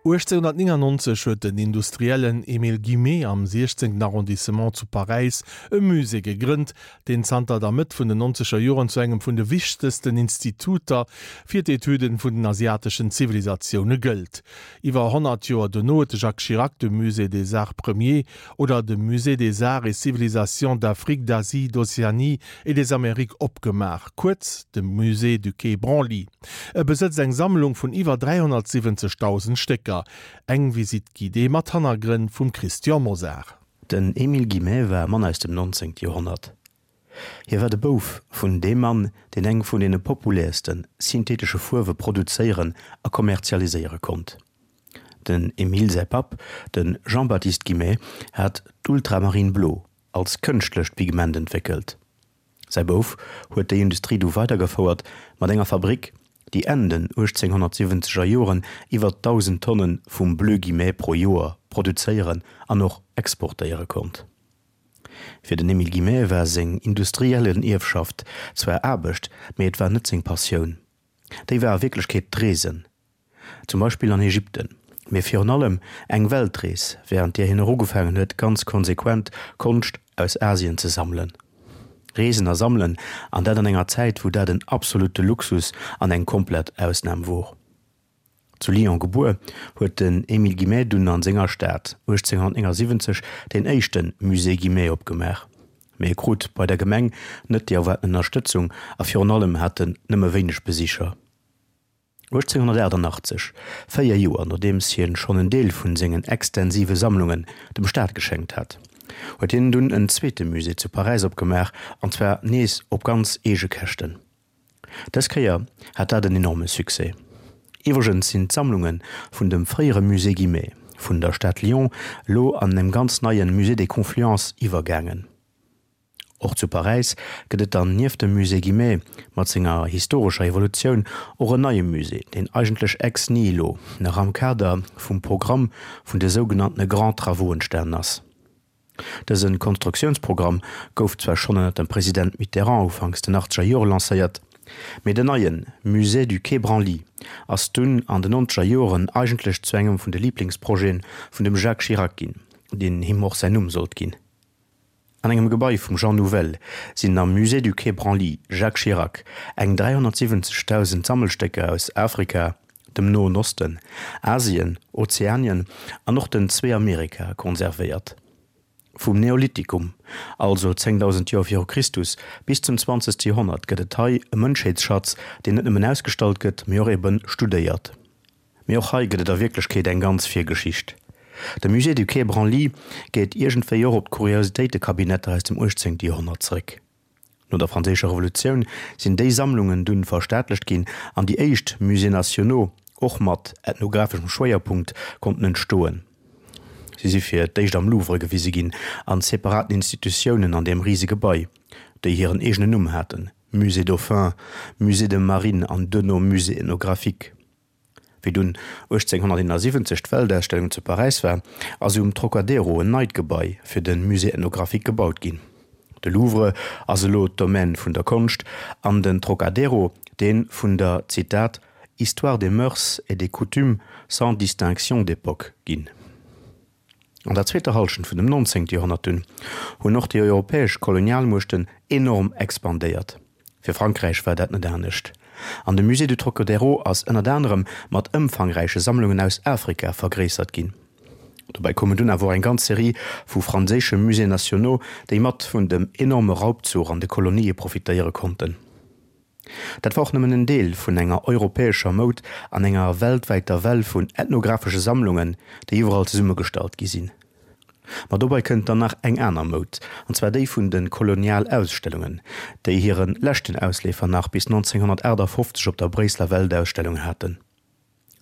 1899 huet den Industriellen Émile Guimet am 16. Arrondissement zu Paräis e Musée gegrënnt, deen zanter der Mëtt vun den nonzeger Joren zu engem vun de wichtegsten Instituter fir d'Etüden vun den asiateschen Zivilisatioune gëllt. Iwwer 100 Joer dono huet de Jacques Chirac de Musée des Arts Premiers oder de Musée des Arts et Civilisations d'Afrique, d'Asie, d'Océanie et des Amériques opgemaach, kuerz de Musée du Quai Branly. E besëtzt eng Sammlung vun iwwer 370.000 Stécker. Eng Visite guidée mat Hannergrënn vum Christian Mosar. Den Émile Guimet war e Mann aus dem 19. Joerhonnert. Hie war de Bouf vun deem Mann, deen eng vun deene populäerste synthetesche Fuerwe produzéieren a kommerzialiséiere konnt. Den Émile säi Papp, de Jean-Baptiste Guimet, hat d'Ultramarine blo als kënschtlecht Pigment entwéckelt. Säi Bouf huet déi Industrie du weidergefouert mat enger Fabrick, déi Enn den 1870 er Joren iwwer 1.000 Tonne vum Bleu Guimet pro Joer produzéieren an och exportéiere konnt. Fir den Émile Guimet war seng industriellen Ierfschaft zwar Aarbecht, mee et war net seng Passioun. Déi war a Wierklechkeet d'Reesen. Zum Beispill an Ägypten, mee virun allem eng Weltrees, wärend där hien och ugefaangen huet, ganz konsequent Konscht aus Asien ze sammelen. Reesen a sammelen, an dat an enger Zäit, wou dat en absolutte Luxus an eng komplett Ausnam wor. Zu Lyon gebuer, huet den Émile Guimet dunn an senger Stad 1879 deen éischte Musée Guimet opgemaach. Mee e krut bei der Gemeng net déi erwaarten Ënnerstëtzung a virun allem hat en nëmme wéineg Besicher. 1888, véier Joer nodeems hien schonn en Deel vun sengen extensive Sammlungen dem Staat geschenkt hat, huet hien dunn en zweete Musée zu Paräis opgemaach, an zwar nees op ganz eege Käschten. Dës Kéier hat dat en enorme Succès. Iwwregens sinn d'Sammlunge vun dem fréiere Musée Guimet vun der Stad Lyon elo an em ganz neie Musée des Confluences iwwergaangen. Och zu Paräis gëtt et dann nieft dem Musée Guimet mat senger historescher Evolutioun och en neie Musée, deen eigentlech ex nihilo nach am Kader vum Programm vun de sougenanntene Grands Travaux entstanen ass. Dëse Konstruktiounsprogramm gouf zwar schonn ënnert dem President Mitterrand ufanks den achtzeger Jore lancéiert, mee den neie Musée du Quai Branly ass dunn an den nonzeger Joren eigentlech zu engem vun de Liblingsprojete vun dem Jacques Chirac ginn, deen him och säin Numm sollt ginn. An engem Gebai vum Jean Nouvel sinn am Musée du Quai Branly Jacques Chirac eng 370.000 Sammelstécker aus Afrika, dem Noen Osten, Asien, Ozeanien an och den zwee Amerikae konservéiert. Vum Neolithikum, also 10.000 Joer viru Christus, bis zum zwanzegste Joerhonnert gëtt et hei e Mënschheetsschatz, deen net nëmmen ausgestallt gëtt, mee och ebe studéiert. Mee och hei gëtt et a Wierklechkeet eng ganz Virgeschicht. De Musée du Quai Branly geet iergendwéi och op d'Kuriositéitekabinetter aus dem 18. Joerhonnert zréck. No der Franséischer Revolutioun sinn déi Sammlungen dunn verstaatlecht ginn an déi éischt Musées nationaux, och mat ethnographeschem Schwéierpunkt, konnten entstoen. Si si fir d'éischt am Louvre gewise ginn, an separaten Institutiounen an deem rise Gebai, déi hiren eegenen Numm haten, Musée Dauphin, Musée de Marine an duerno Musée ethnographique. Wéi dunn 1871 d'Weltausstellung zu Paräis war, ass um Trocadero en neit Gebai fir de Musée ethnographique gebaut ginn. De Louvre ass elo d'Domaine vun der Konscht an den Trocadero dee vun der, Zitat, histoire des mœurs et des coutumes sans distinction d'époque ginn. An der zweeter Hallschent vun dem 19. Joerhonnert dunn hunn och déi europäesch Kolonialmuechten enorm expandéiert. Fir Frankräich war dat net anescht. An de Musée du Trocadéro ass ënnert anerem mat ëmfangräiche Sammlungen aus Afrika vergréissert ginn. Dobäi koumen dunn awer och eng ganz Serie vu franséische Musées nationaux, déi mat vun dem enorme Raubzuch an de Kolonië profitéiere konnten. Dat war och nëmmen en Deel vun enger europäescher Moud an enger weltwäiter Well vun ethnographesche Sammlungen, déi iwwerall zesummegestallt gi sinn. Ma dobei kënnt dann nach eng aner Moud, an zwar déi vun de Kolonialausstellungen, déi hire leschten Ausleefer nach bis 1958 op der Bréisseler Weltausstellung haten.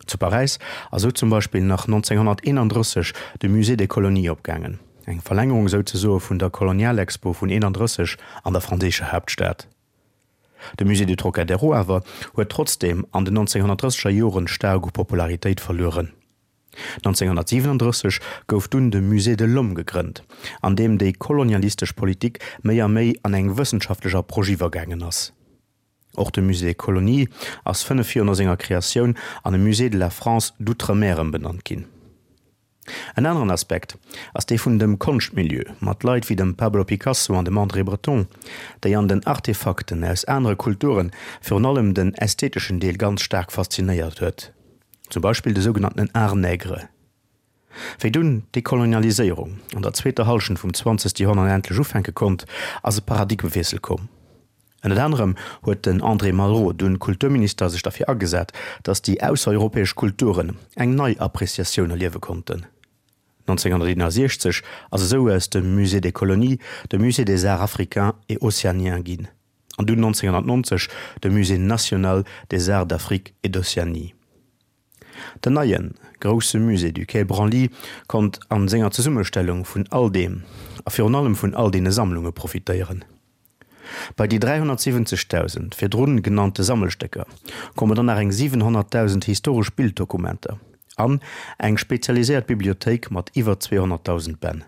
Zu Paräis ass sou zum Beispill nach 1931 de Musée des Colonies opgaangen, eng Verlängerung souzesoe vun der Kolonialexpo vun 31 an der franséischer Haaptstad. De Musée du Trocadéro awer huet trotzdeem an den 1930er Joren staark u Popularitéit verlueren. 1937 gouf dunn de Musée de l'Homme gegrënnt, an deem déi kolonialistesch Politik méi a méi an eng wëssenschaftlech Approche iwwergaangen ass. Och de Musée des Colonies ass 5 Joer no senger Kreatioun an e Musée de la France d'Outre-mer ëmbenannt ginn. En aneren Aspekt ass dee vun dem Konschtmilieu, mat Leit wéi dem Pablo Picasso an dem André Breton, déi an den Artefakten aus anere Kulture virun allem den ästheteschen Deel ganz staark faszinéiert huet, zum Beispill de sougenannten Art nègre. Wéi dunn d'Dekolonialiséierung an der zweeter Hallschent vum zwanzegste Joerhonnert endlech ufänke konnt, ass e Paradigmewiessel komm. Ënnert anerem huet den André Malraux, dunn Kulturminister, sech derfir agesat, datt déi aussereuropäesch Kulturen eng nei Appreciatioun erliewe konnten. 1961 ass esou aus dem Musée des Colonies de Musée des Arts africains et océaniens ginn, an dunn 1990 de Musée national des Arts d'Afrique et d'Océanie. Den neien, grousse Musée du Quai Branly konnt an senger Zesummestellung vun all deem, a virun allem vun all deene Sammlunge profitéieren. Bei déi 370.000 virdrun genannte Sammelstécker komme dann nach eng 700.000 historesch Bilddokumenter an eng spezialiséiert Bibliothéik mat iwwer 200.000 Bänn.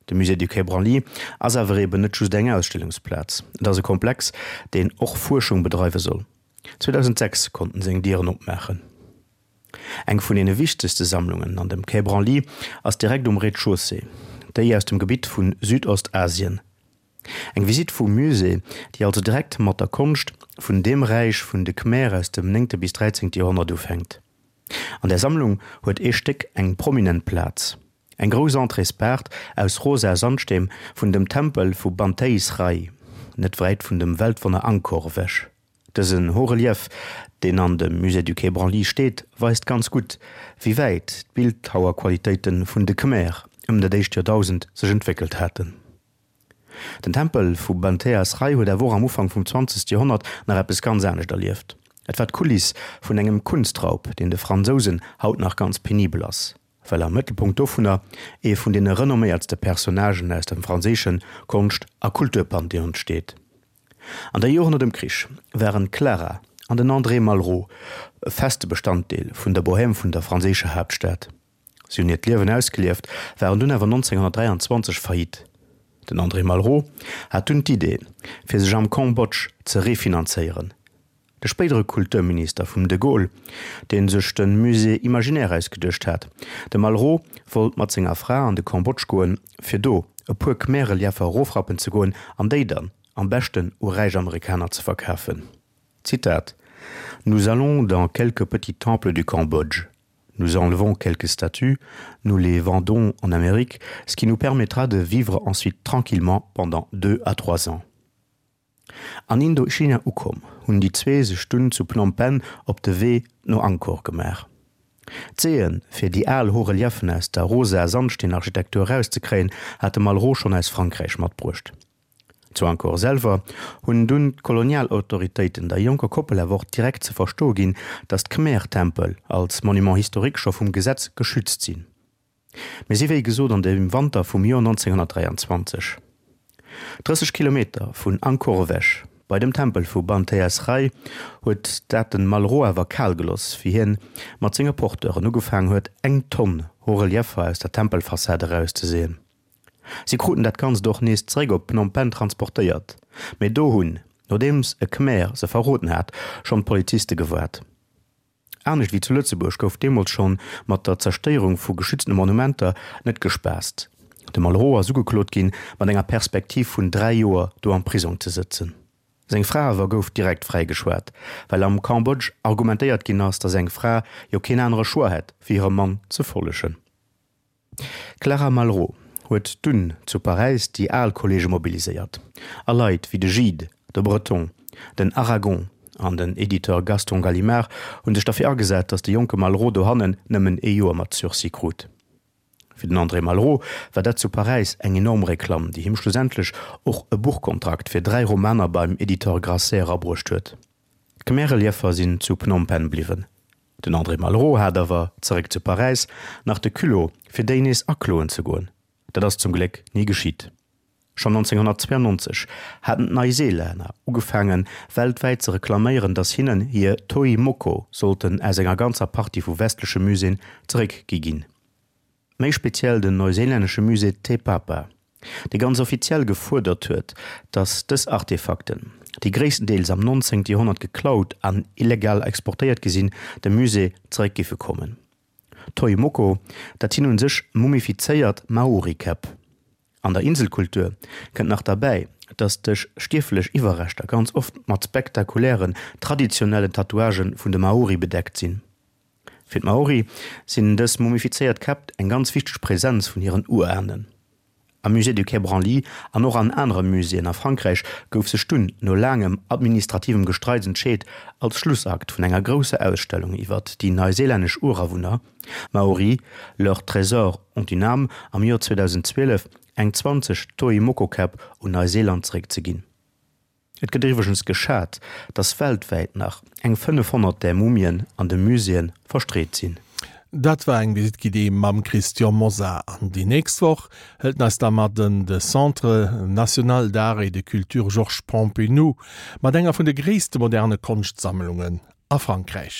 De Musée du Quai Branly ass awer eben net just eng Ausstellungsplaz, et ass e Komplex, deen och Fuerschung bedreiwe soll. 2006 konnt en seng Dieren opmaachen. Eng vun deene wichtegste Sammlungen an dem Quai Branly ass direkt um Rez-de-chaussée, déi aus dem Gebitt vu Südostasien. Eng Visitt vum Musée, déi also direkt mat der Konscht vun deem Räich vun de Khmer aus dem néngte bis dräizéngte Joerhonnert ufänkt. An där Sammlung huet ee Stéck eng prominent Plaz, eng grouss Entréespaart aus rosa Sandsteen vun dem Tempel vu Banteay Srei, net wäit vun dem Weltwonner Angkor ewech. Dësen Haut-relief, deen an dem Musée du Quai Branly steet, weist ganz gutt, wéi wäit d'Bildhauerqualitéite vun de Khmer ëm dat éischt Joerdausend sech entwéckelt haten. Den Tempel vu Banteay Srei huet awer och am Ufank vum zwanzegste Joerhonnert nach eppes ganz anescht erlieft. Et war d'Kuliss vun engem Kunstraub, deen de Fransousen haut nach ganz penibel ass, well am Mëttelpunkt dovunner ee vun deene renomméiertste Personnagen aus dem franséische Konscht a Kulturpantheon steet. An der Joren no dem Krich waren d'Clara an den André Malraux e feste Bestanddeel vun der Bohème vun der franséischer Haaptstad. Si hunn hiert Liewen ausgelieft, waren dunn awer 1923 faillite. Den André Malraux hat dunn d'Idee, fir sech am Cambodge ze refinanzéieren. De spéidere Kulturminister vum de Gaulle, dee sech de Musée imaginaire ausgeduecht hat, de Malraux wollt mat senger Fra an de Cambodge goen, fir do e puer Khmer-Relieffer erofrappen ze goen an déi dann am beschten u räich Amerikaner ze verkafen. Zitat, Nous allons dans quelques petits temples du Cambodge. Nous enlevons quelques statues, nous les vendons en Amérique, ce qui nous permettra de vivre ensuite tranquillement pendant deux à trois ans. An Indochina ukomm, hunn déi zwee sech dunn zu Phnom Penh op de Wee no Angkor gemaach. D'Seeën, fir déi al Haut-Reliefen aus der rosa Sandsteenarchitektur erauszekréien, hat de Malraux schonn aus Frankräich matbruecht. Zu Angkor selwer hunn dunn d'Kolonialautoritéiten der jonker Koppel awer och direkt ze verstoe ginn, datt d'Khmer-Tempel als Monument historique scho vum Gesetz geschützt sinn. Mir si wéi gesot an dem Wanter vum Joer 1923. 30 Kilometer vun Angkor ewech, bei dem Tempel vu Banteay Srei, huet dat den Malraux awer kal geloss, wéi hien mat senge Porteuren ugefaangen huet, eng Tonn Haut-Relieffer aus der Tempelfassad erauszeseeën. Si kruten dat Ganzt och nees zeréck op Phnom Penh transportéiert, mee do hunn, nodeems e Khmer se verroden hat, schonn d'Poliziste gewaart. Anescht wéi zu Lëtzebuerg gouf deemools schonn mat der Zerstéierung vu geschütztene Monumenter net gespaasst. De Malraux ass ugeklot ginn, mat enger Perspektiv vun 3 Joer do am Prisong ze sëtzen. Seng Fra awer gouf direkt fräigeschwat, well am Cambodge argumentéiert ginn ass, datt eng Fra jo keen anere Choix hätt, wéi hirem Mann ze follegen. D'Clara Malraux huet dunn zu Paräis déi al Kolleege mobiliséiert a Leit wéi de Gide, de Breton, den Aragon an den Editeur Gaston Gallimard hu sech derfir agesat, datt de jonke Malraux dohannen nëmmen ee Joer mat Sursis krut. Fir den André Malraux war dat zu Paräis eng enorm Reklamm, déi him schlussendlech och e Buchkontrakt fir 3 Romaner beim Editeur Grasset erabruecht huet. D'Khmer-Relieffer sinn zu Phnom Penh bliwwen. Den André Malraux hat awer, zeréck zu Paräis, nach de Culot, fir déi nees akloen ze goen. Dat ass zum Gléck ni geschitt. Schonn 1992 haten d'Neiseelänner ugefaangen, weltwäit ze reklaméieren, datt hinnen hir Toi Moko sollten aus enger ganzer Partie vu westleche Muséeën zeréckgi ginn. Méi speziell den neuseelännesche Musée Te Papa, dee ganz offiziell gefuerdert huet, datt dës Artefakten. déi gréisstendeels am 19. Joerhonnert geklaut an illegal exportéiert gi sinn, dem Musée zeréck géife kommen. Toi Moko, dat sinn un sech mumifizéiert Maori-Käpp. An der Inselkultur kënnt nach derbäi, dass dech stierflech Iwwerreschter ganz oft mat spektakulären, traditionellen Tatouagë vun de Maori bedeckt sinn. Fir d'Maori sinn dës mumifizéiert Käpp eng ganz wichteg Präsenz vun hiren Urahnen. Am Musée du Quai Branly an och an anere Muséeën a Frankräich gouf sech dunn no laangem administrativem Gestreits entscheet, als Schlussakt vun enger grousser Ausstellung iwwert déi neuseelännesch Urawunner, Maori, leurs trésors ont une âme, am Joer 2012 eng 20 Toi-Moko-Käpp un Neuseeland zeréckzeginn. Et gëtt iwwregens geschat, datt weltwäit nach eng 500 där Mumien an de Muséeë verstreet sinn. Dat war eng Visite guidée mam Christian Mosar. An déi nächst Woch hëlt en eis da mat en de Centre National d'Art et de Culture Georges Pompidou, mat enger vun de gréisste moderne Konschtsammlungen a Frankräich.